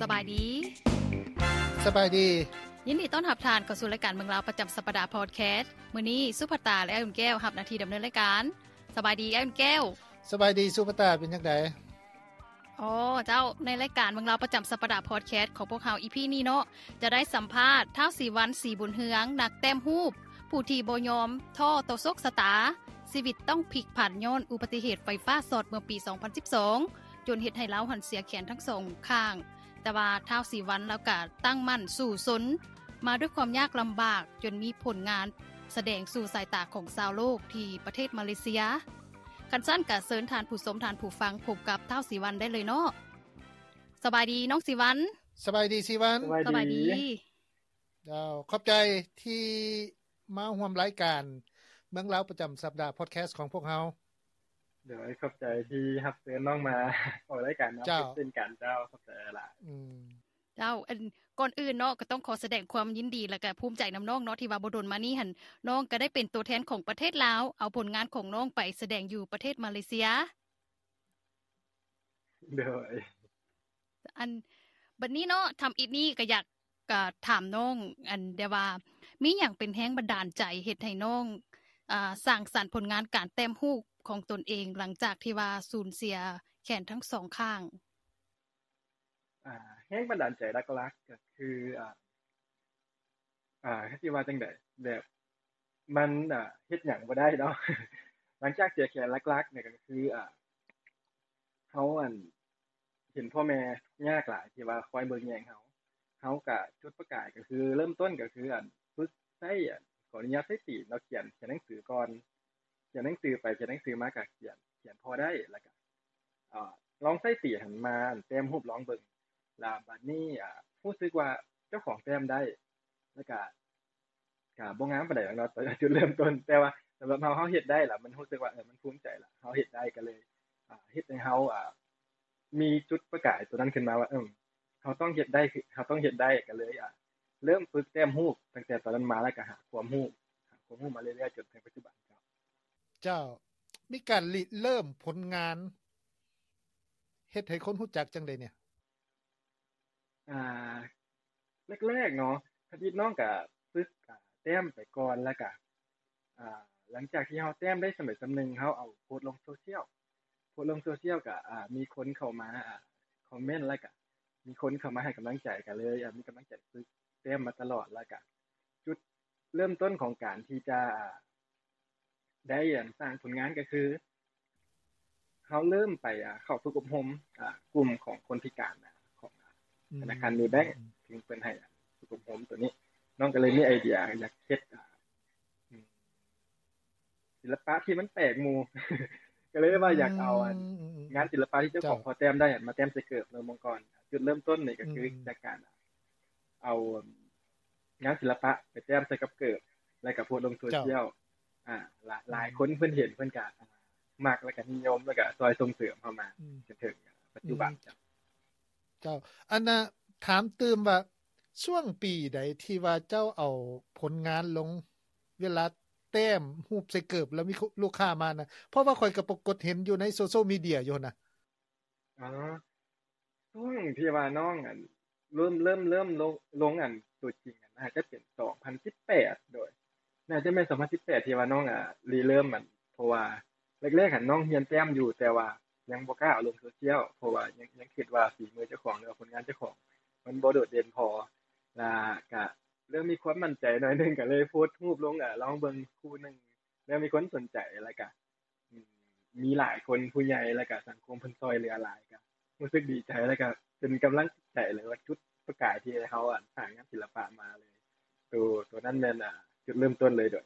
ສະບາຍດີ. ສະບາຍດີ. ຍິນດີຕ້ອນຮັບທ່ານເຂົ້າສູ່ລາຍການເມືອງລາວປະຈຳສັບປະດາພອດແຄສ. ມື້ນີ້ສຸພັດຕາ ແລະ ອ້າຍອຸ່ນແກ້ວຮັບໜ້າທີ່ດຳເນີນລາຍການ. ສະບາຍດີອ້າຍອຸ່ນແກ້ວ. ສະບາຍດີສຸພັດຕາ ເປັນຈັ່ງໃດ? ອໍ ເຈົ້າ, ໃນລາຍການເມືອງລາວປະຈຳສັບປະດາພອດແຄສຂອງພວກເຮົາ ອີພີນີ້ເນາະ ຈະໄດ້ສຳພາດທ້າວສີວັນ ສີບຸນເຮືອງ ນັກແຕ້ມຮູບ ຜູ້ທີ່ບໍ່ຍອມທໍ້ຕໍ່ໂຊກຊະຕາ, ຊີວິດຕ້ອງພິກຜັນຍ້ອນອຸບັດຕິເຫດໄຟຟ້າຊັອດເມື່ອປີສອງພັນສິບສອງ ຈົນເຮັດໃຫ້ລາວຫັ້ນເສຍແຂນທັງສອງຂ້າງ. ແຕ່ວ່າທ້າວສີວັນລາວກະຕັ້ງໝັ້ນສູ້ຊົນມາດ້ວຍຄວາມຍາກລຳບາກ ຈົນມີຜົນງານສະແດງສູ່ສາຍຕາຂອງຊາວໂລກທີ່ປະເທດມາເລເຊຍ. ຄັນຊັ້ນກະເຊີນທ່ານຜູ້ຊົມທ່ານຜູ້ຟັງພົບກັບທ້າວສີວັນໄດ້ເລີຍເນາະ. ສະບາຍດີນ້ອງສີວັນ. ສະບາຍດີສີວັນ. ສະບາຍດີ. ເຈົ້າ, ຂອບໃຈທີ່ມາຮ່ວມລາຍການເມືອງລາວປະຈຳສັບປະດາພອດແຄສຂອງພວກເຮົາ. ໂດຍ, ຂອບໃຈທີ່ຮັບເຊີນນ້ອງມາອອກລາຍການນຳ. ເຈົ້າ, ເຊັ່ນກັນເຈົ້າ, ຂອບໃຈຫຼາຍ. ອືມ. ເຈົ້າ, ອັນ ກ່ອນອື່ນເນາະ ກໍຕ້ອງຂໍສະແດງຄວາມຍິນດີ ແລະ ກະພູມໃຈນຳນ້ອງເນາະ ທີ່ວ່າບໍ່ດົນມານີ້ຫັ້ນ ນ້ອງກໍໄດ້ເປັນຕົວແທນຂອງປະເທດລາວ ເອົາຜົນງານຂອງນ້ອງໄປສະແດງຢູ່ປະເທດມາເລເຊຍ. ໂດຍ. ອັນ ບັດນີ້ເນາະ ທຳອິດນີ້ກໍຢາກ ກໍຖາມນ້ອງ ອັນ ແຕ່ວ່າມີຫຍັງເປັນແຮງບັນດານໃຈເຮັດໃຫ້ນ້ອງ ອ່າ ສ້າງສັນຜົນງານການແຕ້ມຮູບຂອງຕົນເອງ ຫຼັງຈາກທີ່ວ່າສູນເສຍແຂນທັງສອງຂ້າງ? ອ່າ ແຮງບັນດານໃຈຫຼັກໆກໍຄື ອ່າ ອ່າ ຊິວ່າຈັ່ງໃດ ແບບ ມັນ ອ່າ ເຮັດຫຍັງບໍ່ໄດ້ເນາະ. ຫຼັງຈາກເສຍແຂນ ຫຼັກໆນີ້ກໍຄື ອ່າ ເຮົາ ອັນ ເຫັນພໍ່ແມ່ຍາກຫຼາຍທີ່ວ່າຄອຍເບິ່ງແຍງເຮົາ. ເຮົາກະຈຸດປະກາຍກໍຄືເລີ່ມຕົ້ນກໍຄື ອັນ ຝຶກໃຊ້ ອັນ ຂໍອະນຸຍາດໃຊ້ຕີນເນາະ ຂຽນ ຂຽນໜັງສືກ່ອນ. ຂຽນໜັງສືໄປຂຽນໜັງສືມາກະຂຽນ ຂຽນພໍໄດ້ ແລ້ວກະ ອ່າ ລອງໃຊ້ຕີນຫັ້ນມາ ອັນ ແຕ້ມຮູບລອງເບິ່ງ. ລະບາດນີ້ ອ່າ ຮູ້ສຶກວ່າເຈົ້າຂອງແຕ້ມໄດ້ ແລ້ວກະ ກະບໍ່ງາມປານໃດດອກເນາະ ຕອນຈຸດເລີ່ມຕົ້ນ, ແຕ່ວ່າສຳລັບເຮົາ ເຮົາເຮັດໄດ້ລະ ມັນຮູ້ສຶກວ່າ ເອີ ມັນພູມໃຈລະ ເຮົາເຮັດໄດ້ ກໍເລີຍ ອ່າ ເຮັດໃຫ້ເຮົາ ອ່າ ມີຈຸດປະກາຍຕົວນັ້ນຂຶ້ນມາວ່າ ເອີ ເຮົາຕ້ອງເຮັດໄດ້ ເຮົາຕ້ອງເຮັດໄດ້ ກໍເລີຍ ອ່າ ເລີ່ມຝຶກແຕ້ມຮູບຕັ້ງແຕ່ຕອນນັ້ນມາ ແລ້ວກໍຫາຄວາມຮູ້ ຫາຄວາມຮູ້ມາເລື້ອຍໆ ຈົນເຖິງປັດຈຸບັນ. ເຈົ້າ ເຈົ້າ ມີການລິເລີ່ມຜົນງານ ເຮັດໃຫ້ຄົນຮູ້ຈັກຈັ່ງໃດແດ່? ອ່າ ແລກໆເນາະ ທຳອິດນ້ອງກະຝຶກ ອ່າ ແຕ້ມໄປກ່ອນ ແລ້ວກະ ອ່າ ຫຼັງຈາກທີ່ເຮົາແຕ້ມໄດ້ສ່ຳໃດສ່ຳໜຶ່ງ ເຮົາເອົາໂພສລົງໂຊຊຽວ ໂພສລົງໂຊຊຽວກະ ອ່າ ມີຄົນເຂົ້າມາ ອ່າ ຄອມເມັນ ແລ້ວກະມີຄົນເຂົ້າມາໃຫ້ກຳລັງໃຈ ກະເລີຍ ອ່າ ມີກຳລັງໃຈຝຶກແຕ້ມມາຕະຫຼອດ. ແລ້ວກະຈຸດເລີ່ມຕົ້ນຂອງການທີ່ຈະ ອ່າ ໄດ້ ອັນ ສ້າງຜົນງານກໍຄື ເຮົາເລີ່ມໄປ ອ່າ ເຂົ້າຝຶກອົບຮົມ ອ່າ ກຸ່ມຂອງຄົນພິການ ອ່າ ຂອງ ອ່າ ອືມ ທະນາຄານເມແບັງ ອືມ ເພິ່ນ ເພິ່ນໃຫ້ ອ່າ ຝຶກອົບຮົມໂຕນີ້ ນ້ອງກໍເລີຍມີໄອເດຍຢາກເຮັດ ອ່າ ອືມ ສິລະປະທີ່ມັນແປກໝູ່ ກໍເລີຍວ່າຢາກເອົາ ອືມ ອັນ ອືມ ອືມ ງານສິລະປະທີ່ເຈົ້າຂອງ ເຈົ້າ ພໍແຕ້ມໄດ້ ອັນ ມາແຕ້ມໃສ່ເກີບເນາະ ເມື່ອກ່ອນ. ຈຸດເລີ່ມຕົ້ນນີ້ກໍຄື ອືມ ຈາກການ ອ່າ ເອົາ ອ່າ ງານສິລະປະໄປແຕ້ມໃສ່ກັບເກີບ ແລ້ວກໍໂພສລົງໂຊຊຽວ ເຈົ້າ ອ່າ ຫຼາຍ ອືມ ຫຼາຍຄົນເພິ່ນເຫັນ ເພິ່ນກໍ ອ່າ ມັກ ແລ້ວກໍນິຍົມ ແລ້ວກໍຊ່ອຍສົ່ງເສີມເຮົາມາ ອືມ ຈົນເຖິງປັດຈຸບັນ. ອືມ ເຈົ້າ ເຈົ້າ ອັນນ່າ ຖາມຕື່ມວ່າ ຊ່ວງປີໃດທີ່ວ່າເຈົ້າເອົາຜົນງານລົງ ເວລາແຕ້ມຮູບໃສ່ເກີບແລ້ວມີລູກຄ້າມານະ? ເພາະວ່າຂ້ອຍກໍປາກົດເຫັນຢູ່ໃນໂຊຊຽວມີເດຍຢູ່ຫັ້ນນະ. ອໍ ຊ່ວງທີ່ວ່ານ້ອງ ອັນ ເລີ່ມ ເລີ່ມ ເລີ່ມລົງ ລົງ ອັນ ຕົວຈິງ ອັນ ໜ້າຈະເປັນສອງພັນສິບແປດ ໂດຍ ໜ້າຈະແມ່ນສອງພັນສິບແປດ ທີ່ວ່ານ້ອງ ອ່າ ລິເລີ່ມ ອັນ ເພາະວ່າແລກໆຫັ້ນນ້ອງຮຽນແຕ້ມຢູ່ ແຕ່ວ່າຍັງບໍ່ກ້າເອົາລົງໂຊຊຽວ ເພາະວ່າຍັງ ຍັງຄິດວ່າຝີມືເຈົ້າຂອງ ຫຼືວ່າຜົນງານເຈົ້າຂອງມັນບໍ່ໂດດເດັ່ນພໍ ລະກະເລີ່ມມີຄວາມໝັ້ນໃຈໜ້ອຍໜຶ່ງ ກະເລີຍໂພສຮູບລົງ ອ່າ ລອງເບິ່ງຄູ່ໜຶ່ງ ເລີ່ມມີຄົນສົນໃຈ ລະກະ ອືມ ມີຫຼາຍຄົນ ຜູ້ໃຫຍ່ ແລ້ວກະສັງຄົມເພິ່ນຊ່ອຍເຫຼືອຫຼາຍ ກະຮູ້ສຶກດີໃຈ ແລ້ວກະເປັນກຳລັງໃຈ ຫຼືວ່າຈຸດປະກາຍທີ່ໃຫ້ເຮົາ ອັນ ສ້າງງານສິລະປະມາເລີຍ. ໂຕ ໂຕນັ້ນແມ່ນ ອ່າ ຈຸດເລີ່ມຕົ້ນເລີຍໂດຍ.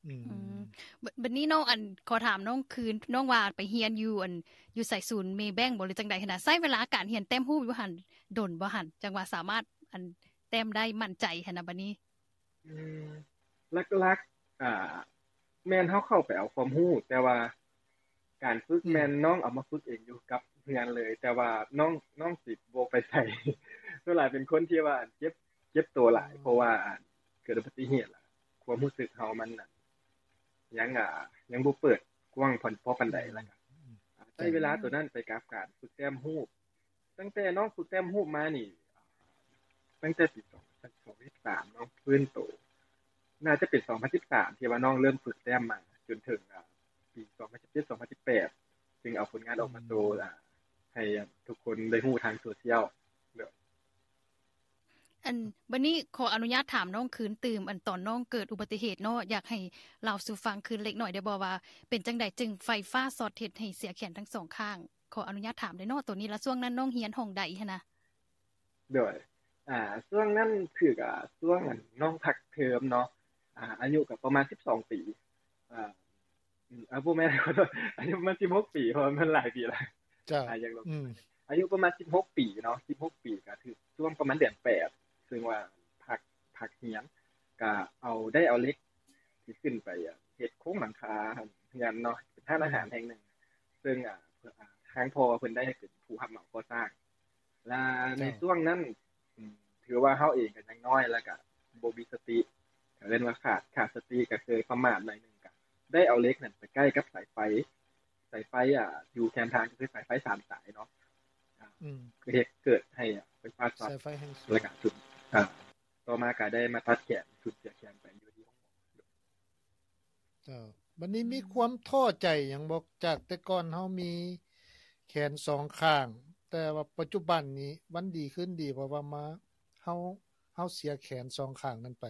ອືມ ອືມ ບ- ບັດນີ້ນ້ອງ ອັນ ຂໍຖາມນ້ອງຄືນ ນ້ອງວ່າໄປຮຽນຢູ່ ອັນ ຢູ່ໃສ ສູນເມແບັງບໍ ຫຼືຈັ່ງໃດຫັ້ນນະ? ໃຊ້ເວລາການຮຽນແຕ້ມຮູບຢູ່ຫັ້ນດົນບໍ່ຫັ້ນ? ຈັ່ງວ່າສາມາດ ອັນ ແຕ້ມໄດ້ໝັ້ນໃຈຫັ້ນນະບັດນີ້. ອືມ ຫຼັກໆ ອ່າ ແມ່ນເຮົາເຂົ້າໄປເອົາຄວາມຮູ້ ແຕ່ວ່າການຝຶກ ອືມ ແມ່ນນ້ອງເອົາມາຝຶກເອງຢູ່ກັບເຮືອນເລີຍ ແຕ່ວ່ານ້ອງ ນ້ອງຊິບໍ່ໄປໃສ ສ່ວນຫຼາຍເປັນຄົນທີ່ວ່າເຈັບ ເຈັບໂຕຫຼາຍ ເພາະວ່າເກີດອຸບັດຕິເຫດ ຄວາມຮູ້ສຶກເຮົາມັນຍັງ ອ່າ ຍັງບໍ່ເປີດກວ້າງພໍປານໃດ ແລ້ວກໍ ອືມ ໃຊ້ເວລາໂຕນັ້ນໄປກັບການຝຶກແຕ້ມຮູບ ຕັ້ງແຕ່ນ້ອງຝຶກແຕ້ມຮູບມານີ້ ຕັ້ງແຕ່ປີສອງພັນສິບສາມເນາະ ຟື້ນໂຕ ໜ້າຈະເປັນສອງພັນສິບສາມ ທີ່ວ່ານ້ອງເລີ່ມຝຶກແຕ້ມມາ ຈົນເຖິງ ອ່າ ປີສອງພັນສິບເຈັດ ສອງພັນສິບແປດ ຈຶ່ງເອົາຜົນງານອອກມາໂຊ ອືມ ອ່າ ໃຫ້ ອ່າ ທຸກຄົນໄດ້ຮູ້ທາງໂຊຊຽວ. ອັນ ບັດນີ້ຂໍອະນຸຍາດຖາມນ້ອງຄືນຕື່ມ ອັນຕອນນ້ອງເກີດອຸບັດຕິເຫດເນາະ ຢາກໃຫ້ເລົ່າສູ່ຟັງຄືນເລັກໜ້ອຍໄດ້ບໍ່ວ່າ ເປັນຈັ່ງໃດຈຶ່ງໄຟຟ້າຊັອດເຮັດໃຫ້ເສຍແຂນທັງສອງຂ້າງ? ຂໍອະນຸຍາດຖາມໄດ້ເນາະໂຕນີ້ ແລະ ຊ່ວງນັ້ນນ້ອງຮຽນຫ້ອງໃດຫັ້ນນະ? ໂດຍ ອ່າ ຊ່ວງນັ້ນຄື ອ່າ ຊ່ວງ ອັນ ນ້ອງພັກເທີມເນາະ ອ່າ ອາຍຸກໍປະມານສິບສອງປີ ອ່າ ອາ ບໍ່ແມ່ນ ອາຍຸປະມານສິບຫົກປີ ເພາະວ່າມັນຫຼາຍປີແລ້ວ. ເຈົ້າ ອາ ຍັງ ອືມ ອາຍຸປະມານສິບຫົກປີເນາະ ສິບຫົກປີ ກໍຖືກຊ່ວງປະມານເດືອນແປດ ເຊິ່ງວ່າພັກ ພັກຮຽນ ກໍເອົາ ໄດ້ເອົາເຫຼັກທີ່ຂຶ້ນໄປ ອາ ເຮັດໂຄງຫຼັງຄາເຮືອນເນາະ ເປັນຮ້ານອາຫານແຫ່ງໜຶ່ງ ເຊິ່ງ ອາ ອາ ທາງພໍ່ເພິ່ນໄດ້ເປັນຜູ້ຮັບເໝົາກໍ່ສ້າງ ແລະ ໃນ ເຈົ້າ ຊ່ວງນັ້ນ ອືມ ຖືວ່າເຮົາເອງກໍຍັງນ້ອຍ ແລ້ວກໍບໍ່ມີສະຕິ ກໍເອີ້ນວ່າຂາດ ຂາດສະຕິ ກໍເຄີຍປະໝາດໜ້ອຍໜຶ່ງ ກໍໄດ້ເອົາເຫຼັກນັ້ນໄປໃກ້ກັບສາຍໄຟ ສາຍໄຟ ອ່າ ຢູ່ແຄມທາງ ກໍຄືສາຍໄຟສາມສາຍເນາະ ອືມ ກໍເຮັດເກີດໃຫ້ ອ່າ ໄຟຟ້າຊັອດ ສາຍໄຟແຮງສູງ ແລ້ວກໍ ອ່າ ຕໍ່ມາກໍໄດ້ມາຕັດແຂນ ສູນເສຍແຂນໄປຢູ່ທີ່ໂຮງໝໍ. ເຈົ້າ ບັດນີ້ມີຄວາມທໍ້ໃຈຫຍັງບໍ່ ຈາກແຕ່ກ່ອນເຮົາມີແຂນສອງຂ້າງ ແຕ່ວ່າປັດຈຸບັນນີ້ວັນດີຄືນດີ ເພາະວ່າມາ ເຮົາ ເຮົາເສຍແຂນສອງຂ້າງນັ້ນໄປ?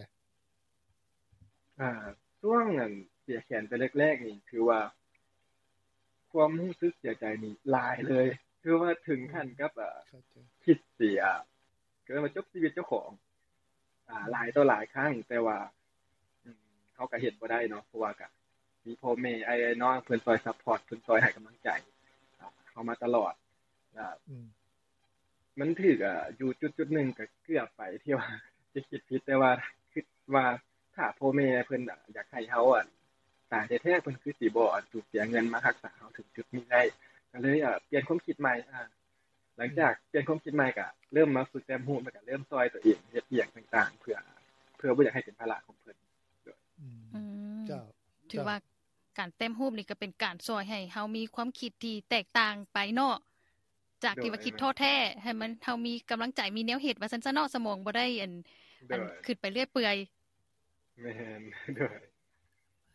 ອ່າ ຊ່ວງ ອັນ ເສຍແຂນໄປແລກໆນີ້ ຖືວ່າຄວາມຮູ້ສຶກເສຍໃຈນີ້ຫຼາຍເລີຍ ຖືວ່າເຖິງຂັ້ນກັບ ອືມ ອ່າ ຄິດຊິ ອ່າ ກໍເອີ້ນວ່າຈົບຊີວິດເຈົ້າຂອງ ອ່າ ອືມ ຫຼາຍຕໍ່ຫຼາຍຄັ້ງ ແຕ່ວ່າ ອືມ ເຮົາກໍເຮັດບໍ່ໄດ້ເນາະ ເພາະວ່າກໍມີພໍ່ແມ່ ອ້າຍນ້ອງເພິ່ນຊ່ອຍຊັບພອດ ເພິ່ນຊ່ອຍໃຫ້ກຳລັງໃຈ ອ່າ ເຮົາມາຕະຫຼອດ ອືມ ມັນຖືກ ອ່າ ຢູ່ຈຸດໆໜຶ່ງກໍເກືອບໄປທີ່ວ່າຈະຄິດຜິດ ແຕ່ວ່າຄິດວ່າຖ້າພໍ່ແມ່ເພິ່ນ ອ່າ ຢາກໃຫ້ເຮົາ ອັນ ຕາຍແທ້ໆ ເພິ່ນຄືຊິບໍ່ ອັນ ສູນເສຍເງິນມາຮັກສາເຮົາເຖິງຈຸດນີ້ໄດ້ ກໍເລີຍ ອ່າ ປ່ຽນຄວາມຄິດໃໝ່ ອ່າ ຫຼັງຈາກ ອືມ ປ່ຽນຄວາມຄິດໃໝ່ ກໍເລີ່ມມາຝຶກແຕ້ມຮູບ ແລ້ວກໍເລີ່ມຊ່ອຍຕົວເອງເຮັດອີ່ຫຍັງຕ່າງໆ ເພື່ອ ເພື່ອບໍ່ຢາກໃຫ້ເປັນພາລະຂອງເພິ່ນ. ອືມ ເຈົ້າ ຖືວ່າ ເຈົ້າ ການແຕ້ມຮູບນີ້ກໍເປັນການຊ່ອຍໃຫ້ເຮົາມີຄວາມຄິດທີ່ແຕກຕ່າງໄປເນາະ ຈາກທີ່ວ່າ ໂດຍ ຄິດທໍ້ແທ້ ໃຫ້ມັນ ເຮົາມີກຳລັງໃຈ ມີແນວເຮັດວ່າຊັ້ນຊະເນາະ ສະໝອງບໍ່ໄດ້ ອັນ ໂດຍ ອັນ ຄິດໄປເລື້ອຍເປື່ອຍ. ແມ່ນ ໂດຍ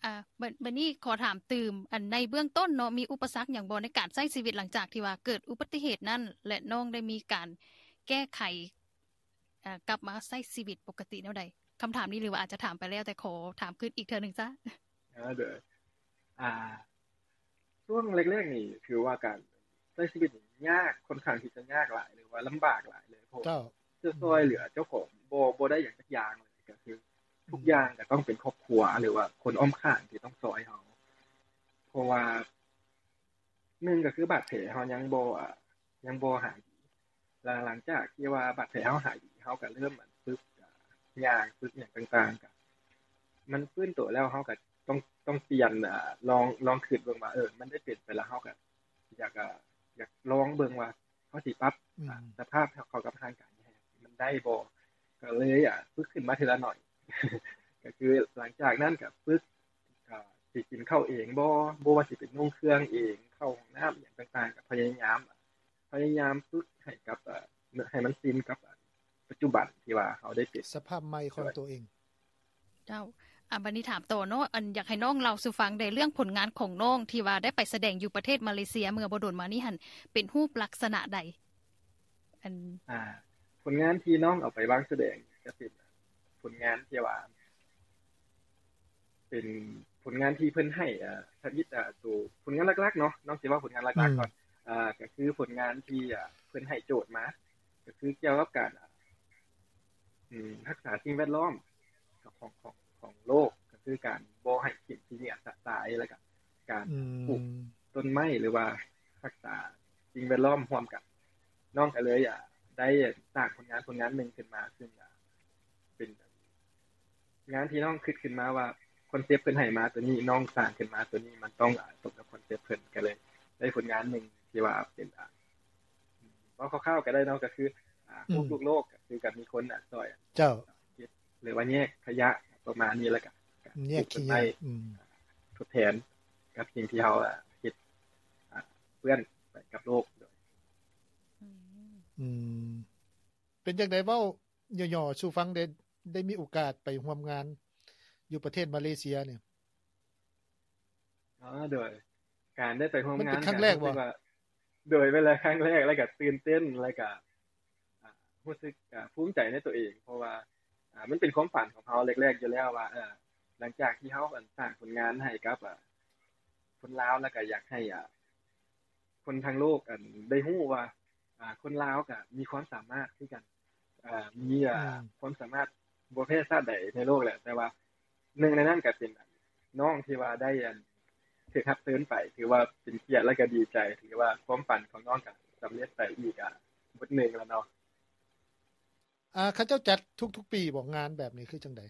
ອ່າ ບັດ ບັດນີ້ຂໍຖາມຕື່ມ ອັນ ໃນເບື້ອງຕົ້ນເນາະ ມີອຸປະສັກຫຍັງບໍ່ໃນການໃຊ້ຊີວິດຫຼັງຈາກທີ່ວ່າເກີດອຸບັດຕິເຫດນັ້ນ ແລະ ນ້ອງໄດ້ມີການແກ້ໄຂ ເອີ ກັບມາໃຊ້ຊີວິດປົກກະຕິແນວໃດ? ຄຳຖາມນີ້ ຫຼືວ່າອາດຈະຖາມໄປແລ້ວ ແຕ່ຂໍຖາມຄືນອີກເທື່ອໜຶ່ງຊະ. ເອີ ໂດຍ ອ່າ ຊ່ວງແລກໆນີ້ ຖືວ່າການໃຊ້ຊີວິດນີ້ຍາກ ຄ່ອນຂ້າງທີ່ຈະຍາກຫຼາຍ ຫຼືວ່າລຳບາກຫຼາຍເລີຍ ເພາະ ເຈົ້າ ຈະຊ່ອຍເຫຼືອເຈົ້າຂອງບໍ່ ບໍ່ໄດ້ຫຍັງຈັກຢ່າງເລີຍ ກໍຄື ອືມ ທຸກຢ່າງກໍຕ້ອງເປັນຄອບຄົວ ຫຼືວ່າຄົນອ້ອມຂ້າງທີ່ຕ້ອງຊ່ອຍເຮົາ ເພາະວ່າ ໜຶ່ງກໍຄືບາດແຜເຮົາຍັງບໍ່ ອ່າ ຍັງບໍ່ຫາຍດີ ແລະ ຫຼັງຈາກທີ່ວ່າບາດແຜເຮົາຫາຍດີ ເຮົາກໍເລີ່ມ ອັນ ຝຶກ ອ່າ ຍ່າງ ຝຶກຫຍັງຕ່າງໆ ກໍມັນຟື້ນໂຕແລ້ວ ເຮົາກໍຕ້ອງ ຕ້ອງປ່ຽນ ອ່າ ລອງ ລອງຄິດເບິ່ງວ່າ ເອີ ມັນໄດ້ເປັນໄປແລ້ວ ເຮົາກໍຢາກ ອ່າ ຢາກລອງເບິ່ງວ່າ ເຮົາຊິປັບ ອືມ ອ່າ ສະພາບເຂົ້າກັບຮ່າງກາຍໃຫ້ມັນໄດ້ບໍ່ ກໍເລີຍ ອ່າ ຝຶກຂຶ້ນມາເທື່ອລະໜ້ອຍ ກໍຄືຫຼັງຈາກນັ້ນກໍຝຶກ ອ່າ ຊິກິນເຂົ້າເອງບໍ່ ບໍ່ວ່າຊິເປັນນຸ່ງເຄື່ອງເອງ ເຂົ້າຫ້ອງນ້ຳ ອີ່ຫຍັງຕ່າງໆ ກໍພະຍາຍາມ ພະຍາຍາມຝຶກໃຫ້ກັບ ອ່າ ໃຫ້ມັນຊິນກັບ ອ່າ ປັດຈຸບັນທີ່ວ່າເຮົາໄດ້ເປັນ ສະພາບໃໝ່ຂອງໂຕເອງ. ເຈົ້າ ອ່າ ບັດນີ້ຖາມຕໍ່ເນາະ ອັນ ຢາກໃຫ້ນ້ອງເລົ່າສູ່ຟັງແດ່ ເລື່ອງຜົນງານຂອງນ້ອງທີ່ວ່າໄດ້ໄປສະແດງຢູ່ປະເທດມາເລເຊຍເມື່ອບໍ່ດົນມານີ້ຫັ້ນ ເປັນຮູບລັກສະນະໃດ? ອັນ ອ່າ ຜົນງານທີ່ນ້ອງເອົາໄປວາງສະແດງ ກໍເປັນຜົນງານທີ່ວ່າ ເປັນຜົນງານທີ່ເພິ່ນໃຫ້ ອ່າ ທຳອິດ ອ່າ ໂຕ ຜົນງານຫຼັກໆເນາະ ນ້ອງຊິເວົ້າຜົນງານຫຼັກໆ ອືມ ກ່ອນ ອ່າ ກໍຄືຜົນງານທີ່ ອ່າ ເພິ່ນໃຫ້ໂຈດມາ ກໍຄືກ່ຽວກັບການ ອາ ອືມ ຮັກສາສິ່ງແວດລ້ອມຂອງ ຂອງ ຂອງໂລກ ກໍຄືການບໍ່ໃຫ້ຖິ້ມຂີ້ເຫຍື້ອຊະຕາຍ ແລ້ວກໍການ ອືມ ປູກຕົ້ນໄມ້ ຫຼືວ່າຮັກສາສິ່ງແວດລ້ອມຮ່ວມກັນ. ນ້ອງກໍເລີຍ ອາ ໄດ້ສ້າງຜົນງານ ຜົນງານໜຶ່ງຂຶ້ນມາ ຊຶ່ງ ອາ ເປັນງານທີ່ນ້ອງຄິດຂຶ້ນມາວ່າ ຄອນເຊັບເພິ່ນໃຫ້ມາຕົວນີ້ ນ້ອງສ້າງຂຶ້ນມາຕົວນີ້ ມັນຕ້ອງ ອາ ສົມກັບຄອນເຊັບເພິ່ນ ກໍເລີຍໄດ້ຜົນງານໜຶ່ງທີ່ວ່າເປັນ ອາ ເວົ້າຄ່າວໆກໍໄດ້ເນາະ ກໍຄື ອາ ອືມ ຮູບລູກໂລກ ກໍຄືກັບມີຄົນ ອາ ຊ່ອຍ ເຈົ້າ ເກັບ ຫຼືວ່າແຍກຂະຫຍະປະມານນີ້ ແລ້ວກໍ ແຍກຂະຫຍະ ອືມ ທົດແທນກັບສິ່ງທີ່ເຮົາ ອາ ເຮັດ ອາ ເປື້ອນໄປກັບໂລກ. ອືມ ອືມ ເປັນຈັ່ງໃດ ເວົ້າຫຍໍ້ໆສູ່ຟັງແດ່ ໄດ້ມີໂອກາດໄປຮ່ວມງານຢູ່ປະເທດມາເລເຊຍນີ້? ອໍ ໂດຍ ການໄດ້ໄປຮ່ວມງານ ມັນເປັນຄັ້ງແລກບໍ່? ໂດຍ ເປັນຄັ້ງແລກ ແລ້ວກໍຕື່ນເຕັ້ນ ແລ້ວກໍ ອ່າ ຮູ້ສຶກ ອ່າ ພູມໃຈໃນຕົວເອງ ເພາະວ່າ ອ່າ ມັນເປັນຄວາມຝັນຂອງເຮົາແລກໆຢູ່ແລ້ວວ່າ ເອີ ຫຼັງຈາກທີ່ເຮົາ ອັນ ສ້າງຜົນງານໃຫ້ກັບ ອ່າ ຄົນລາວ ແລ້ວກໍຢາກໃຫ້ ອ່າ ຄົນທັງໂລກ ອັນ ໄດ້ຮູ້ວ່າ ອ່າ ຄົນລາວກໍມີຄວາມສາມາດຄືກັນ ອ່າ ມີ ອ່າ ອືມ ຄວາມສາມາດບໍ່ແພ້ຊາດໃດໃນໂລກແຫຼະ ແຕ່ວ່າໜຶ່ງໃນນັ້ນກໍເປັນນ້ອງທີ່ວ່າໄດ້ ອັນ ຖືກຮັບເຊີນໄປ ຖືວ່າເປັນກຽດ ແລ້ວກໍດີໃຈ ຖືວ່າຄວາມຝັນຂອງນ້ອງກໍສຳເລັດໄປອີກ ອ່າ ບົດໜຶ່ງແລ້ວເນາະ. ອ່າ ເຂົາເຈົ້າຈັດທຸກໆປີບໍ່ ງານແບບນີ້ຄືຈັ່ງໃດ?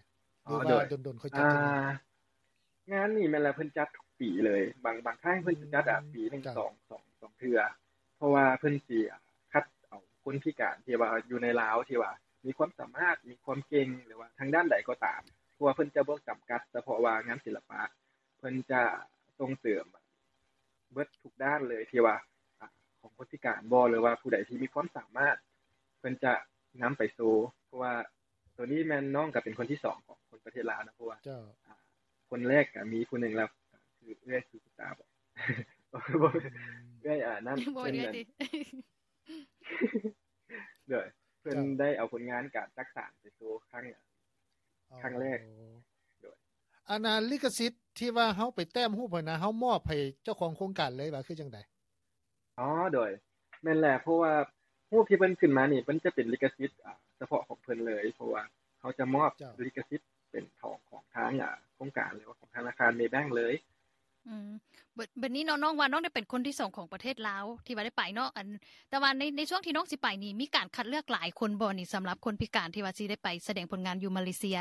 ຫຼືວ່າ ອໍ ໂດຍ ດົນໆຄ່ອຍຈັດເທື່ອໜຶ່ງ? ອ່າ ງານນີ້ແມ່ນແຫຼະ ເພິ່ນຈັດທຸກປີເລີຍ ບາງ ບາງຄັ້ງເພິ່ນ ອືມ ຈະຈັດ ອ່າ ປີໜຶ່ງ ເຈົ້າ ສອງ ສອງ ສອງເທື່ອ ເພາະວ່າເພິ່ນຊິ ອ່າ ຄັດເອົາຄົນພິການທີ່ວ່າຢູ່ໃນລາວ ທີ່ວ່າມີຄວາມສາມາດ ມີຄວາມເກັ່ງ ຫຼືວ່າທາງດ້ານໃດກໍຕາມ ເພາະວ່າເພິ່ນຈະບໍ່ຈຳກັດສະເພາະວ່າງານສິລະປະ ເພິ່ນຈະສົ່ງເສີມເບິດທຸກດ້ານເລີຍ ທີ່ວ່າ ອ່າ ຂອງຄົນພິການບໍ ຫຼືວ່າຜູ້ໃດທີ່ມີຄວາມສາມາດ ເພິ່ນຈະນຳໄປໂຊ ເພາະວ່າ ໂຕນີ້ແມ່ນນ້ອງກໍເປັນຄົນທີສອງຂອງຄົນປະເທດລາວນະ ເພາະວ່າ ເຈົ້າ ອ່າ ຄົນແລກກໍມີຜູ້ໜຶ່ງແລ້ວ ຄືເອື້ອຍສຸກິຕາບໍ ບໍ່ແມ່ນ ອືມ ເອື້ອຍ ອ່າ ນັ້ນ ບໍ່ ເອື້ອຍ ເພິ່ນ ເອື້ອຍຕິ ໂດຍ ເພິ່ນ ເຈົ້າ ໄດ້ເອົາຜົນງານການຈັກສານໄປໂຊຄັ້ງ ອໍ ຄັ້ງແລກ ໂດຍ ອັນນ່າ ລິຂະສິດທີ່ວ່າເຮົາໄປແຕ້ມຮູບຫັ້ນນະ ເຮົາມອບໃຫ້ເຈົ້າຂອງໂຄງການເລີຍວ່າ ຄືຈັ່ງໃດ? ອໍ ໂດຍ ແມ່ນແຫຼະ ເພາະວ່າຮູບທີ່ເພິ່ນຂຶ້ນມານີ້ ເພິ່ນຈະເປັນລິຂະສິດ ອ່າ ສະເພາະຂອງເພິ່ນເລີຍ ເພາະວ່າເຮົາຈະມອບ ເຈົ້າ ລິຂະສິດເປັນຂອງ ຂອງທາງ ອ່າ ໂຄງການ ຫຼືວ່າຂອງທະນາຄານເມແບັງເລີຍ. ອືມ ບ- ບັດນີ້ເນາະ ນ້ອງວ່ານ້ອງໄດ້ເປັນຄົນທີສອງຂອງປະເທດລາວທີ່ວ່າໄດ້ໄປເນາະ ອັນ ແຕ່ວ່າໃນ ໃນຊ່ວງທີ່ນ້ອງຊິໄປນີ້ ມີການຄັດເລືອກຫຼາຍຄົນບໍ່ນີ້ ສຳລັບຄົນພິການທີ່ວ່າຊິໄດ້ໄປສະແດງຜົນງານຢູ່ມາເລເຊຍ?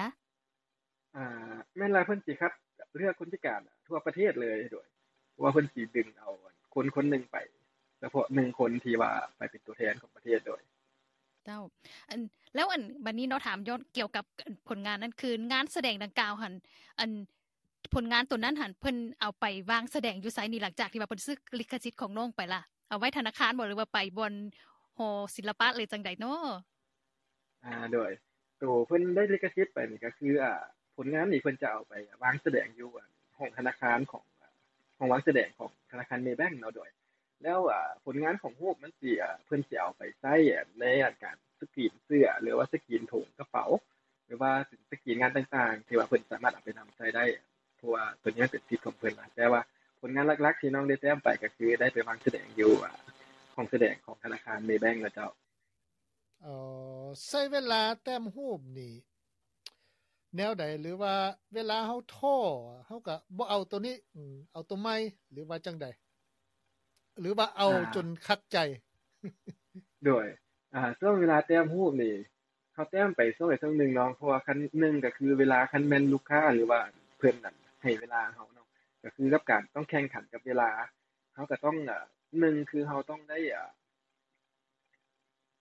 ອ່າ ແມ່ນລະ ເພິ່ນຊິຄັດເລືອກຄົນພິການທົ່ວປະເທດເລີຍ ໂດຍ ເພາະວ່າເພິ່ນຊິດຶງເອົາຄົນຄົນໜຶ່ງໄປ ສະເພາະໜຶ່ງຄົນທີ່ວ່າໄປເປັນຕົວແທນຂອງປະເທດ ໂດຍ ເຈົ້າ ອັນ ແລ້ວ ອັນ ບັດນີ້ເນາະ ຖາມຍ້ອນກ່ຽວກັບ ອັນ ຜົນງານນັ້ນ ຄືງານສະແດງດັ່ງກ່າວຫັ້ນ ອັນ ຜົນງານໂຕນັ້ນຫັ້ນ ເພິ່ນເອົາໄປວາງສະແດງຢູ່ໃສນີ້ ຫຼັງຈາກທີ່ວ່າເພິ່ນຊື້ລິຂະສິດຂອງນ້ອງໄປລະ? ເອົາໄວ້ທະນາຄານບໍ ຫຼືວ່າໄປບ່ອນຫໍສິລະປະ ຫຼືຈັ່ງໃດເນາະ? ອ່າ ໂດຍ ໂຕເພິ່ນໄດ້ລິຂະສິດໄປນີ້ກໍຄື ອ່າ ຜົນງານນີ້ເພິ່ນຈະເອົາໄປວາງສະແດງຢູ່ ອ່າ ຫ້ອງທະນາຄານຂອງ ອ່າ ຫ້ອງວາງສະແດງຂອງທະນາຄານເມແບັງເນາະ ໂດຍ ແລ້ວ ອ່າ ຜົນງານຂອງຮູບມັນຊິ ອ່າ ເພິ່ນຊິເອົາໄປໃຊ້ ອ່າ ໃນ ອ່າ ການສະກຣີນເສື້ອ ຫຼືວ່າສະກຣີນຖົງກະເປົາ ຫຼືວ່າສະກຣີນງານຕ່າງໆ ທີ່ວ່າເພິ່ນສາມາດເອົາໄປນຳໃຊ້ໄດ້ ເພາະວ່າໂຕນີ້ມັນເປັນສິດຂອງເພິ່ນລະ ແຕ່ວ່າຜົນງານຫຼັກໆ ທີ່ນ້ອງໄດ້ແຕ້ມໄປກໍຄືໄດ້ໄປວາງສະແດງຢູ່ ອ່າ ຫ້ອງສະແດງຂອງທະນາຄານເມແບັງລະເຈົ້າ. ອໍ ໃຊ້ເວລາແຕ້ມຮູບນີ້ແນວໃດ ຫຼືວ່າເວລາເຮົາທໍ້ ເຮົາກໍບໍ່ເອົາໂຕນີ້ ອືມ ເອົາໂຕໃໝ່ ຫຼືວ່າຈັ່ງໃດ ຫຼືວ່າເອົາ ອ່າ ຈົນຂັດໃຈ? ໂດຍ ອ່າ ຊ່ວງເວລາແຕ້ມຮູບນີ້ ເຮົາແຕ້ມໄປຊ່ວງໃດຊ່ວງໜຶ່ງເນາະ ເພາະວ່າຄັນ ໜຶ່ງກໍຄືເວລາ ຄັນແມ່ນລູກຄ້າ ຫຼືວ່າເພິ່ນນັ້ນໃຫ້ເວລາເຮົາເນາະ ກໍຄືກັບການຕ້ອງແຂ່ງຂັນກັບເວລາ ເຮົາກໍຕ້ອງ ເອີ ໜຶ່ງຄືເຮົາຕ້ອງໄດ້ ເອີ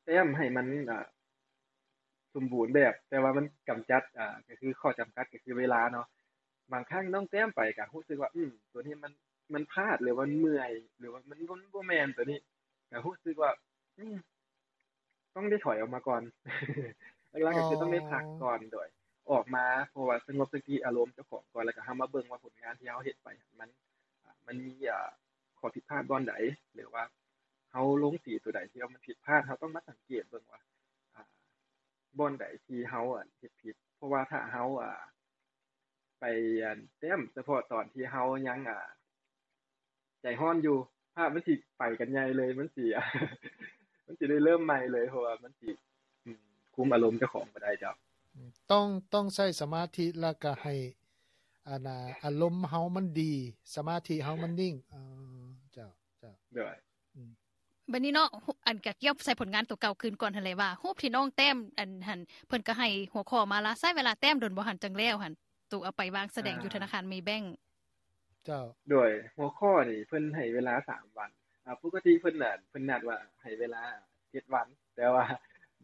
ແຕ້ມໃຫ້ມັນ ເອີ ສົມບູນແບບ ແຕ່ວ່າມັນກຳຈັດ ເອີ ກໍຄືຂໍ້ຈຳກັດກໍຄືເວລາເນາະ. ບາງຄັ້ງນ້ອງແຕ້ມໄປກໍຮູ້ສຶກວ່າ ອືມ ໂຕນີ້ມັນ ມັນພາດ ຫຼືວ່າມັນເມື່ອຍ ຫຼືວ່າມັນ ມັນບໍ່ແມ່ນໂຕນີ້ ກໍຮູ້ສຶກວ່າ ອືມ ຕ້ອງໄດ້ຖອຍອອກມາກ່ອນ ຫຼັກໆກໍຄືຕ້ອງໄດ້ພັກກ່ອນ ໂດຍອອກມາ ເພາະວ່າສະຫງົບສະຕິອາລົມເຈົ້າຂອງກ່ອນ ແລ້ວກໍເຮົາມາເບິ່ງວ່າຜົນງານທີ່ເຮົາເຮັດໄປຫັ້ນ ມັນ ອາ ມັນມີ ອາ ຂໍ້ຜິດພາດບ່ອນໃດ ຫຼືວ່າເຮົາລົງສີຕົວໃດທີ່ວ່າມັນຜິດພາດ ເຮົາຕ້ອງມາສັງເກດເບິ່ງວ່າ ອາ ບ່ອນໃດທີ່ເຮົາ ອາ ເຮັດຜິດ ເພາະວ່າຖ້າເຮົາ ອາ ໄປ ອັນ ແຕ້ມສະເພາະຕອນທີ່ເຮົາຍັງ ອາ ໃຈຮ້ອນຢູ່ ພາບມັນຊິໄປກັນໃຫຍ່ເລີຍ ມັນຊິ ມັນຊິໄດ້ເລີ່ມໃໝ່ເລີຍ ເພາະວ່າມັນຊິ ອາ ຄຸມອາລົມເຈົ້າຂອງບໍ່ໄດ້ເຈົ້າ. ອືມ ຕ້ອງ ຕ້ອງໃຊ້ສະມາທິ ແລ້ວກໍໃຫ້ ອັນນ່າ ອາລົມເຮົາມັນດີ ສະມາທິເຮົາມັນນິ່ງ. ເອີ ເຈົ້າ ເຈົ້າ ໂດຍ ອືມ ບັດນີ້ເນາະ ອັນ ກະກ່ຽວໃສ່ຜົນງານໂຕເກົ່າຄືນກ່ອນຫັ້ນແຫຼະ ວ່າຮູບທີ່ນ້ອງແຕ້ມ ອັນຫັ້ນ ເພິ່ນກໍໃຫ້ຫົວຂໍ້ມາລະ ໃຊ້ເວລາແຕ້ມດົນບໍ່ຫັ້ນ ຈັ່ງແລ້ວຫັ້ນ ໂຕເອົາໄປວາງສະແດງຢູ່ທະນາຄານເມແບັງ. ເຈົ້າ ໂດຍຫົວຂໍ້ນີ້ເພິ່ນໃຫ້ເວລາສາມວັນ ອາ ປົກກະຕິເພິ່ນ ອາ ເພິ່ນນັດວ່າໃຫ້ເວລາເຈັດວັນ ແຕ່ວ່າ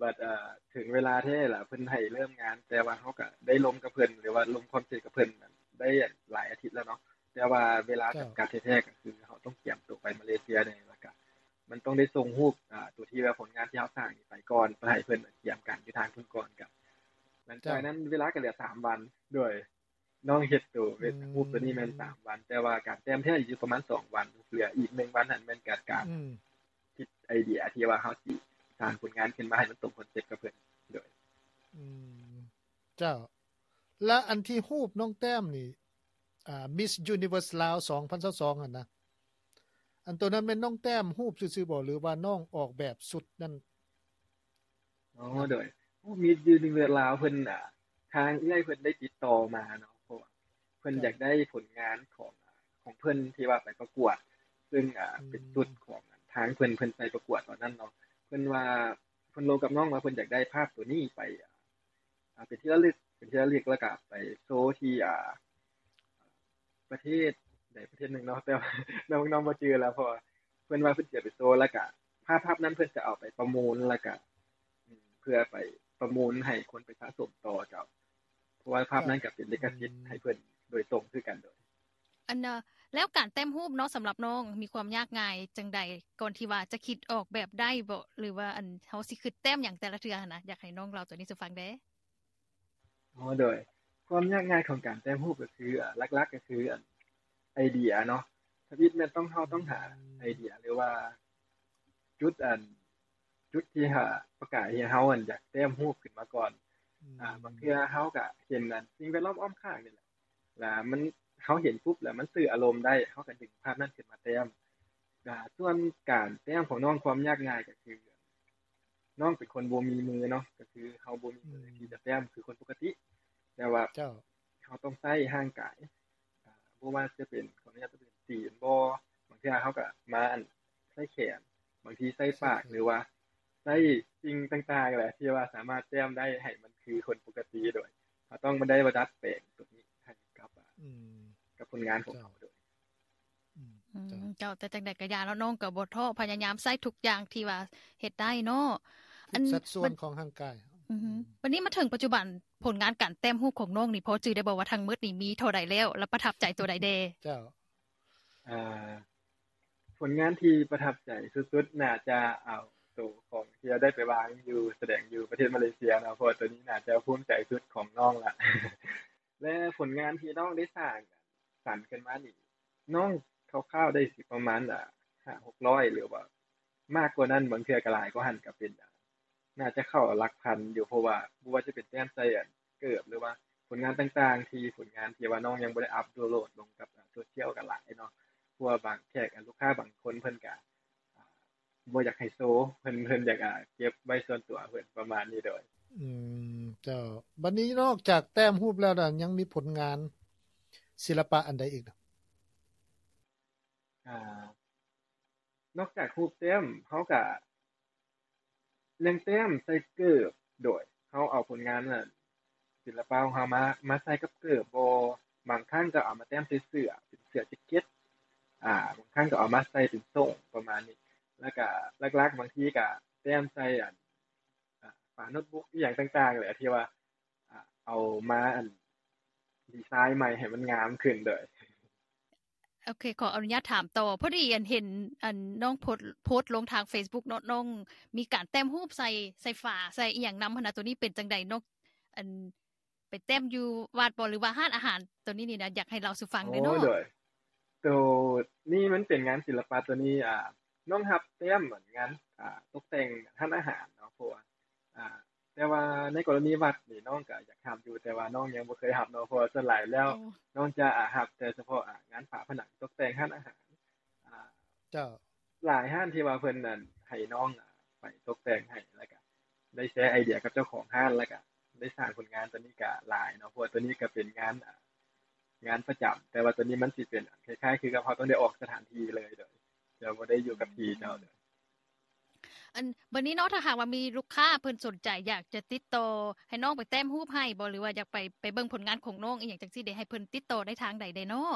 ບັດ ເອີ ເຖິງເວລາແທ້ລະ ເພິ່ນໃຫ້ເລີ່ມງານ ແຕ່ວ່າເຮົາກະໄດ້ລົມກັບເພິ່ນ ຫຼືວ່າລົງຄວາມເຫັນກັບເພິ່ນໄດ້ຫຼາຍອາທິດແລ້ວເນາະ ແຕ່ວ່າເວລາຈຳກັດແທ້ໆ ກໍຄືເຮົາຕ້ອງກຽມໂຕໄປມາເລເຊຍແດ່ ແລ້ວກະມັນຕ້ອງໄດ້ສົ່ງຮູບ ອາ ໂຕທີ່ວ່າຜົນງານ ທີ່ເຮົາສ້າງນີ້ໄປກ່ອນ ເພື່ອໃຫ້ເພິ່ນຕຽມການຢູ່ທາງພຸ້ນກ່ອນ. ກໍຫຼັງຈາກນັ້ນເວລາກໍເຫຼືອສາມວັນ ໂດຍ ນ້ອງເຮັດໂຕເວັບຮູບໂຕນີ້ແມ່ນສາມວັນ ແຕ່ວ່າການແຕ້ມແທ້ຢູ່ປະມານສອງວັນ ເຫຼືອອີກໜຶ່ງວັນຫັ້ນແມ່ນການຄິດໄອເດຍທີ່ວ່າເຮົາຊິສ້າງຜົນງານຂຶ້ນມາໃຫ້ມັນຕົງຄອນເຊັບກັບເພິ່ນ. ໂດຍ ອືມ ເຈົ້າ ແລະ ອັນທີ່ຮູບນ້ອງແຕ້ມນີ້ ອ່າ Miss Universe ລາວ ສອງພັນຊາວສອງຫັ້ນນະ ອັນໂຕນັ້ນແມ່ນນ້ອງແຕ້ມຮູບຊື່ໆບໍ່ ຫຼືວ່ານ້ອງອອກແບບຊຸດນັ້ນ? ອໍ ໂດຍ Miss Universe ລາວເພິ່ນ ອ່າ ທາງເອື້ອຍເພິ່ນໄດ້ຕິດຕໍ່ມາເນາະ ເພາະວ່າເພິ່ນຢາກໄດ້ຜົນງານຂອງ ຂອງເພິ່ນທີ່ວ່າໄປປະກວດ ເຊິ່ງ ອ່າ ເປັນຊຸດຂອງທາງເພິ່ນ ເພິ່ນໄປປະກວດຕອນນັ້ນເນາະ. ເພິ່ນວ່າ ເພິ່ນລົມກັບນ້ອງວ່າເພິ່ນຢາກໄດ້ພາບໂຕນີ້ໄປ ອ່າ ເປັນທີ່ລະລຶກ ເປັນທີ່ລະລຶກ ແລ້ວກະໄປໂຊທີ່ ອ່າ ປະເທດໃດປະເທດໜຶ່ງເນາະ ແຕ່ວ່ານ້ອງ ນ້ອງບໍ່ຈື່ແລ້ວ ເພາະວ່າເພິ່ນວ່າເພິ່ນຊິເອົາໄປໂຊ ແລ້ວກະພາບ ພາບນັ້ນເພິ່ນຈະເອົາໄປປະມູນ ແລ້ວກະ ອືມ ເພື່ອໄປປະມູນໃຫ້ຄົນໄປສະສົມຕໍ່. ເຈົ້າ ເພາະວ່າພາບນັ້ນກະເປັນລິຂະສິດໃຫ້ເພິ່ນໂດຍຕົງຄືກັນ. ໂດຍ ອັນ ແລ້ວການແຕ້ມຮູບເນາະ ສຳລັບນ້ອງມີຄວາມຍາກງ່າຍຈັ່ງໃດ ກ່ອນທີ່ວ່າຈະຄິດອອກແບບໄດ້ບໍ່ ຫຼືວ່າ ອັນ ເຮົາຊິຄິດແຕ້ມຫຍັງແຕ່ລະເທື່ອຫັ້ນນະ? ຢາກໃຫ້ນ້ອງເລົ່າໂຕນີ້ສູ່ຟັງແດ່. ອໍ ໂດຍ ຄວາມຍາກງ່າຍຂອງການແຕ້ມຮູບກໍຄື ອາ ຫຼັກໆກໍຄື ອັນ ໄອເດຍເນາະ. ທຳອິດແມ່ນຕ້ອງ ເຮົາຕ້ອງຫາໄອເດຍ ຫຼືວ່າຈຸດ ອັນ ຈຸດທີ່ ອາ ປະກາຍໃຫ້ເຮົາ ອັນ ຢາກແຕ້ມຮູບຂຶ້ນມາກ່ອນ. ອືມ ອາ ບາງເທື່ອເຮົາກໍເຫັນ ອັນ ສິ່ງແວດລ້ອມອ້ອມຂ້າງນີ້ແຫຼະ ລະມັນ ເຮົາເຫັນປຸບລະມັນສື່ອາລົມໄດ້ ເຮົາກໍດຶງພາບນັ້ນຂຶ້ນມາແຕ້ມ. ອາ ສ່ວນການແຕ້ມຂອງນ້ອງ ຄວາມຍາກງ່າຍກໍຄື ນ້ອງເປັນຄົນບໍ່ມີມືເນາະ ກໍຄືເຮົາບໍ່ມີມືທີ່ຈະແຕ້ມຄືຄົນປົກກະຕິ ແຕ່ວ່າເຮົາຕ້ອງໃຊ້ຮ່າງກາຍ ອາ ບໍ່ວ່າຈະເປັນ ຂໍອະນຸຍາດ ຈະເປັນຕີນບໍ ບາງເທື່ອເຮົາກໍມາ ອັນ ໃຊ້ແຂນ ບາງທີໃຊ້ປາກ ຫຼືວ່າໃຊ້ສິ່ງຕ່າງໆແຫຼະ ທີ່ວ່າສາມາດແຕ້ມໄດ້ໃຫ້ມັນຄືຄົນປົກກະຕິ. ໂດຍ ເຮົາຕ້ອງມາໄດ້ມາດັດແປງໂຕນີ້ໃຫ້ກັບ ອາ ອືມ ກັບຜົນງານຂອງເຮົາ. ໂດຍ ອືມ ເຈົ້າ ເຈົ້າ ແຕ່ຈັ່ງໃດກໍຢ່າເນາະ ນ້ອງກໍບໍ່ທໍ້ ພະຍາຍາມໃຊ້ທຸກຢ່າງທີ່ວ່າເຮັດໄດ້ເນາະ ທຸກສັດສ່ວນຂອງຮ່າງກາຍ. ອືຮຶ ບັດນີ້ມາເຖິງປັດຈຸບັນ ຜົນງານການແຕ້ມຮູບຂອງນ້ອງນີ້ ພໍຈື່ໄດ້ບໍ່ວ່າທັງໝົດນີ້ມີເທົ່າໃດແລ້ວ ແລະ ປະທັບໃຈໂຕໃດແດ່? ເຈົ້າ ອາ ຜົນງານທີ່ປະທັບໃຈສຸດໆ ໜ້າຈະເອົາໂຕຂອງທີ່ເຮົາໄດ້ໄປວາງຢູ່ ສະແດງຢູ່ປະເທດມາເລເຊຍເນາະ ເພາະວ່າໂຕນີ້ໜ້າຈະພູມໃຈສຸດຂອງນ້ອງລະ ແລະ ຜົນງານທີ່ນ້ອງໄດ້ສ້າງ ສ້າງຂຶ້ນມານີ້ ນ້ອງຄ່າວໆໄດ້ຊິປະມານ ອາ ຫ້າຫົກຮ້ອຍ ຫຼືວ່າມາກກວ່ານັ້ນ ບາງເທື່ອກໍຫຼາຍກວ່າຫັ້ນກໍເປັນໄດ້ ໜ້າຈະເຂົ້າຫຼັກພັນຢູ່ ເພາະວ່າບໍ່ວ່າຈະເປັນແຕ້ມໃສ່ ອັນ ເກີບ ຫຼືວ່າຜົນງານຕ່າງໆ ທີ່ຜົນງານທີ່ວ່ານ້ອງຍັງບໍ່ໄດ້ອັບໂຫຼດລົງກັບ ອາ ໂຊຊຽວກໍຫຼາຍເນາະ ເພາະວ່າບາງແຂກ ອາ ລູກຄ້າບາງຄົນເພິ່ນກໍ ອາ ບໍ່ຢາກໃຫ້ໂຊ ເພິ່ນ ເພິ່ນຢາກ ອາ ເກັບໄວ້ສ່ວນຕົວເພິ່ນ ປະມານນີ້. ໂດຍ ອືມ ເຈົ້າ ບັດນີ້ນອກຈາກແຕ້ມຮູບແລ້ວ ຍັງມີຜົນງານສິລະປະອັນໃດອີກ? ອາ ນອກຈາກຮູບແຕ້ມ ເຮົາກະຍັງແຕ້ມໃສ່ເກີບ ໂດຍ ເຮົາເອົາຜົນງານ ອາ ສິລະປະຂອງເຮົາມາ ມາໃສ່ກັບເກີບບໍ ບາງຄັ້ງກໍເອົາມາແຕ້ມໃສ່ເສື້ອ ເປັນເສື້ອແຈັກເກັດ ອາ ບາງຄັ້ງກໍເອົາມາໃສ່ເປັນໂສ້ງ ປະມານນີ້ ແລ້ວກະຫຼັກໆ ບາງທີກະແຕ້ມໃສ່ ອັນ ອາ ຝາໂນ້ດບຸກ ອີ່ຫຍັງຕ່າງໆແຫຼະ ທີ່ວ່າ ອາ ເອົາມາ ອັນ ດີໄຊໃໝ່ໃຫ້ມັນງາມຂຶ້ນ. ໂດຍ ໂອເຄ ຂໍອະນຸຍາດຖາມຕໍ່ ພໍດີ ອັນ ເຫັນ ອັນ ນ້ອງໂພສ ໂພສລົງທາງເຟສບຸກເນາະ ນ້ອງມີການແຕ້ມຮູບໃສ່ ໃສ່ຝາ ໃສ່ອີ່ຫຍັງນຳຫັ້ນນະ ໂຕນີ້ເປັນຈັ່ງໃດ? ນ້ອງ ອັນ ໄປແຕ້ມຢູ່ວັດບໍ ຫຼືວ່າຮ້ານອາຫານ? ໂຕນີ້ນີ້ນະ ຢາກໃຫ້ເລົ່າສູ່ຟັງແດ່ເນາະ. ໂອ້ ໂດຍ ໂຕນີ້ມັນເປັນງານສິລະປະ ໂຕນີ້ ອາ ນ້ອງຮັບແຕ້ມ ອາ ງານ ອາ ຕົກແຕ່ງຮ້ານອາຫານເນາະ ເພາະວ່າ ອາ ແຕ່ວ່າໃນກໍລະນີວັດນີ້ ນ້ອງກໍຢາກຮັບຢູ່ ແຕ່ວ່ານ້ອງຍັງບໍ່ເຄີຍຮັບເນາະ ເພາະວ່າສ່ວນຫຼາຍແລ້ວ ໂອ້ ນ້ອງຈະ ອາ ຮັບແຕ່ສະເພາະ ອາ ງານຝາຜະໜັງຕົກແຕ່ງຮ້ານອາຫານ. ອາ ເຈົ້າ ຫຼາຍຮ້ານທີ່ວ່າເພິ່ນ ອັນ ໃຫ້ນ້ອງ ອາ ໄປຕົກແຕ່ງໃຫ້ ແລ້ວກະໄດ້ແຊໄອເດຍກັບເຈົ້າຂອງຮ້ານ ແລ້ວກະໄດ້ສ້າງຜົນງານໂຕນີ້ກະຫຼາຍເນາະ ເພາະວ່າໂຕນີ້ກະເປັນງານ ອາ ງານປະຈຳ ແຕ່ວ່າໂຕນີ້ມັນຊິເປັນ ອາ ຄ້າຍໆຄືກັບເຮົາຕ້ອງໄດ້ອອກສະຖານທີ່ເລີຍ ໂດຍ ຈະບໍ່ໄດ້ຢູ່ກັບທີ່ເຈົ້າ. ໂດຍ ອັນ ບັດນີ້ເນາະ ຖ້າຫາກວ່າມີລູກຄ້າເພິ່ນສົນໃຈຢາກຈະຕິດຕໍ່ໃຫ້ນ້ອງໄປແຕ້ມຮູບໃຫ້ບໍ ຫຼືວ່າຢາກໄປ ໄປເບິ່ງຜົນງານຂອງນ້ອງອີ່ຫຍັງຈັ່ງຊີ້ເດ ໃຫ້ເພິ່ນຕິດຕໍ່ໄດ້ທາງໃດແດ່ເນາະ?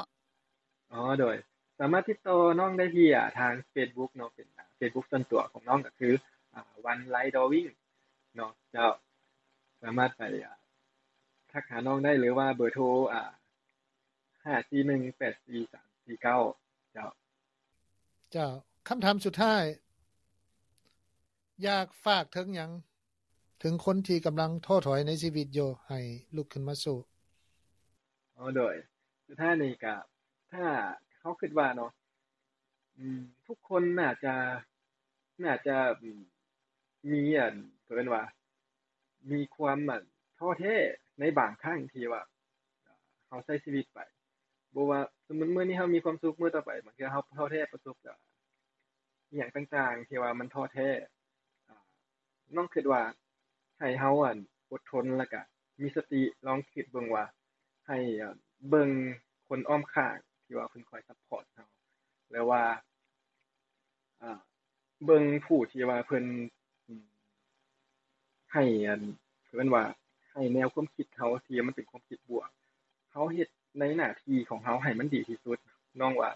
ອໍ ໂດຍ ສາມາດຕິດຕໍ່ນ້ອງໄດ້ທີ່ ອາ ທາງເຟສບຸກເນາະ ເປັນ ອາ ເຟສບຸກສ່ວນຕົວຂອງນ້ອງກໍຄື ອາ ວັນໄລດຣອວິ້ງເນາະ ເຈົ້າ ສາມາດໄປ ອາ ທັກຫານ້ອງໄດ້ ຫຼືວ່າເບີໂທ ອາ ຫ້າສີ່ໜຶ່ງແປດສີ່ສາມສີ່ເກົ້າ ເຈົ້າ. ເຈົ້າ ຄຳຖາມສຸດທ້າຍ ຢາກຝາກເຖິງຫຍັງ ເຖິງຄົນທີ່ກຳລັງທໍ້ຖອຍໃນຊີວິດຢູ່ ໃຫ້ລຸກຂຶ້ນມາສູ້? ອໍ ໂດຍ ສຸດທ້າຍນີ້ກະ ຖ້າເຮົາຄິດວ່າເນາະ ອືມ ທຸກຄົນໜ້າຈະ ໜ້າຈະ ອືມ ມີ ອັນ ເອີ້ນວ່າ ມີຄວາມ ອັນ ທໍ້ແທ້ໃນບາງຄັ້ງທີ່ວ່າ ເຮົາໃຊ້ຊີວິດໄປ ບໍ່ວ່າ ສົມມຸດມື້ນີ້ເຮົາມີຄວາມສຸກ ມື້ຕໍ່ໄປບາງເທື່ອເຮົາທໍ້ແທ້ ປະສົບກັບອີ່ຫຍັງຕ່າງໆ ທີ່ວ່າມັນທໍ້ແທ້ ອາ ນ້ອງຄິດວ່າໃຫ້ເຮົາ ອັນ ອົດທົນ ແລ້ວກະມີສະຕິ ລອງຄິດເບິ່ງວ່າ ໃຫ້ ເບິ່ງຄົນອ້ອມຂ້າງທີ່ວ່າເພິ່ນຄອຍຊັບພອດເຮົາ ແລ້ວວ່າ ອາ ເບິ່ງຜູ້ທີ່ວ່າເພິ່ນ ອາ ໃຫ້ ອັນ ເອີ້ນວ່າ ໃຫ້ແນວຄວາມຄິດເຮົາທີ່ມັນເປັນຄວາມຄິດບວກ ເຮົາເຮັດໃນໜ້າທີ່ຂອງເຮົາໃຫ້ມັນດີທີ່ສຸດ. ນ້ອງວ່າ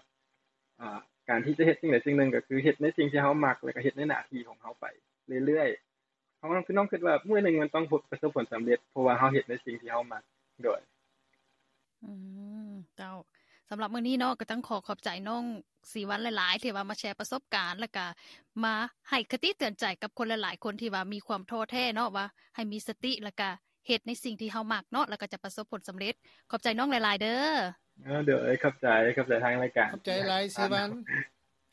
ອາ ການທີ່ຈະເຮັດສິ່ງໃດສິ່ງໜຶ່ງ ກໍຄືເຮັດໃນສິ່ງທີ່ເຮົາມັກ ແລ້ວກໍເຮັດໃນໜ້າທີ່ຂອງເຮົາໄປເລື້ອຍໆ. ເຮົາ ນ້ອງ ຄືນ້ອງຄິດວ່າມື້ໜຶ່ງມັນຕ້ອງພົບ ປະສົບຜົນສຳເລັດ ເພາະວ່າເຮົາເຮັດໃນສິ່ງທີ່ເຮົາມັກ. ໂດຍ ອືມ ເຈົ້າ ສຳລັບມື້ນີ້ເນາະ ກໍຕ້ອງຂໍຂອບໃຈນ້ອງສີວັນຫຼາຍໆ ທີ່ວ່າມາແຊປະສົບການ ແລ້ວກະມາໃຫ້ຄະຕິເຕືອນໃຈກັບຄົນຫຼາຍໆຄົນທີ່ວ່າມີຄວາມທໍ້ແທ້ເນາະ ວ່າໃຫ້ມີສະຕິ ແລ້ວກະເຮັດໃນສິ່ງທີ່ເຮົາມັກເນາະ ແລ້ວກໍຈະປະສົບຜົນສຳເລັດ. ຂອບໃຈນ້ອງຫຼາຍໆເດີ້. ເອີ ໂດຍ ຂອບໃຈ ຂອບໃຈທາງລາຍການ ຂອບໃຈຫຼາຍສີວັນ.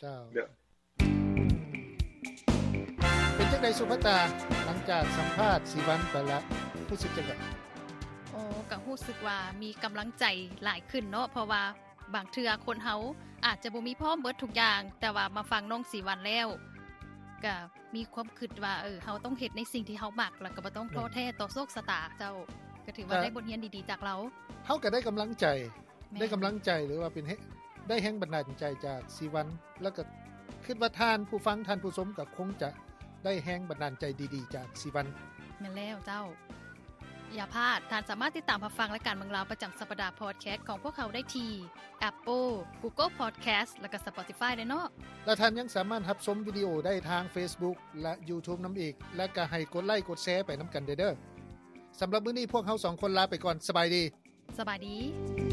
ເຈົ້າ ເປັນຈັ່ງໃດສຸພາຕາ ຫຼັງຈາກສຳພາດສີວັນໄປລະ ຮູ້ສຶກຈັ່ງໃດ? ໂອ້ ກໍຮູ້ສຶກວ່າມີກຳລັງໃຈຫຼາຍຂຶ້ນເນາະ ເພາະວ່າບາງເທື່ອຄົນເຮົາອາດຈະບໍ່ມີພ້ອມເບິດທຸກຢ່າງ ແຕ່ວ່າມາຟັງນ້ອງສີວັນແລ້ວ ກໍມີຄວາມຄິດວ່າ ເອີ ເຮົາຕ້ອງເຮັດໃນສິ່ງທີ່ເຮົາມັກ ແລ້ວກໍບໍ່ຕ້ອງທໍ້ແທ້ຕໍ່ໂຊກຊະຕາ. ເຈົ້າ ກໍຖືວ່າໄດ້ບົດຮຽນດີໆຈາກລາວ. ເຮົາກໍໄດ້ກຳລັງໃຈ ແມ່ນ ໄດ້ກຳລັງໃຈ ຫຼືວ່າເປັນ ໄດ້ແຮງບັນດານໃຈຈາກສີວັນ ແລ້ວກໍຄິດວ່າທ່ານຜູ້ຟັງ ທ່ານຜູ້ຊົມກໍຄົງຈະໄດ້ແຮງບັນດານໃຈດີໆຈາກສີວັນ. ແມ່ນແລ້ວເຈົ້າ. ຢ່າພາດ, ທ່ານສາມາດຕິດຕາມຮັບຟັງລາຍການເມືອງລາວປະຈຳສັບປະດາພອດແຄສຂອງພວກເຮົາໄດ້ທີ່ Apple, Google Podcast ແລະກະ Spotify ເດ້ເນາະ. ແລະທ່ານຍັງສາມາດຮັບຊົມວິດີໂອໄດ້ທາງ Facebook ແລະ YouTube ນຳອີກ, ແລະກະໃຫ້ກົດໄລກົດແຊໄປນຳກັນເດີ. ສຳລັບມື້ນີ້ພວກເຮົາສອງຄົນລາໄປກ່ອນ. ສະບາຍດີ. ສະບາຍດີ.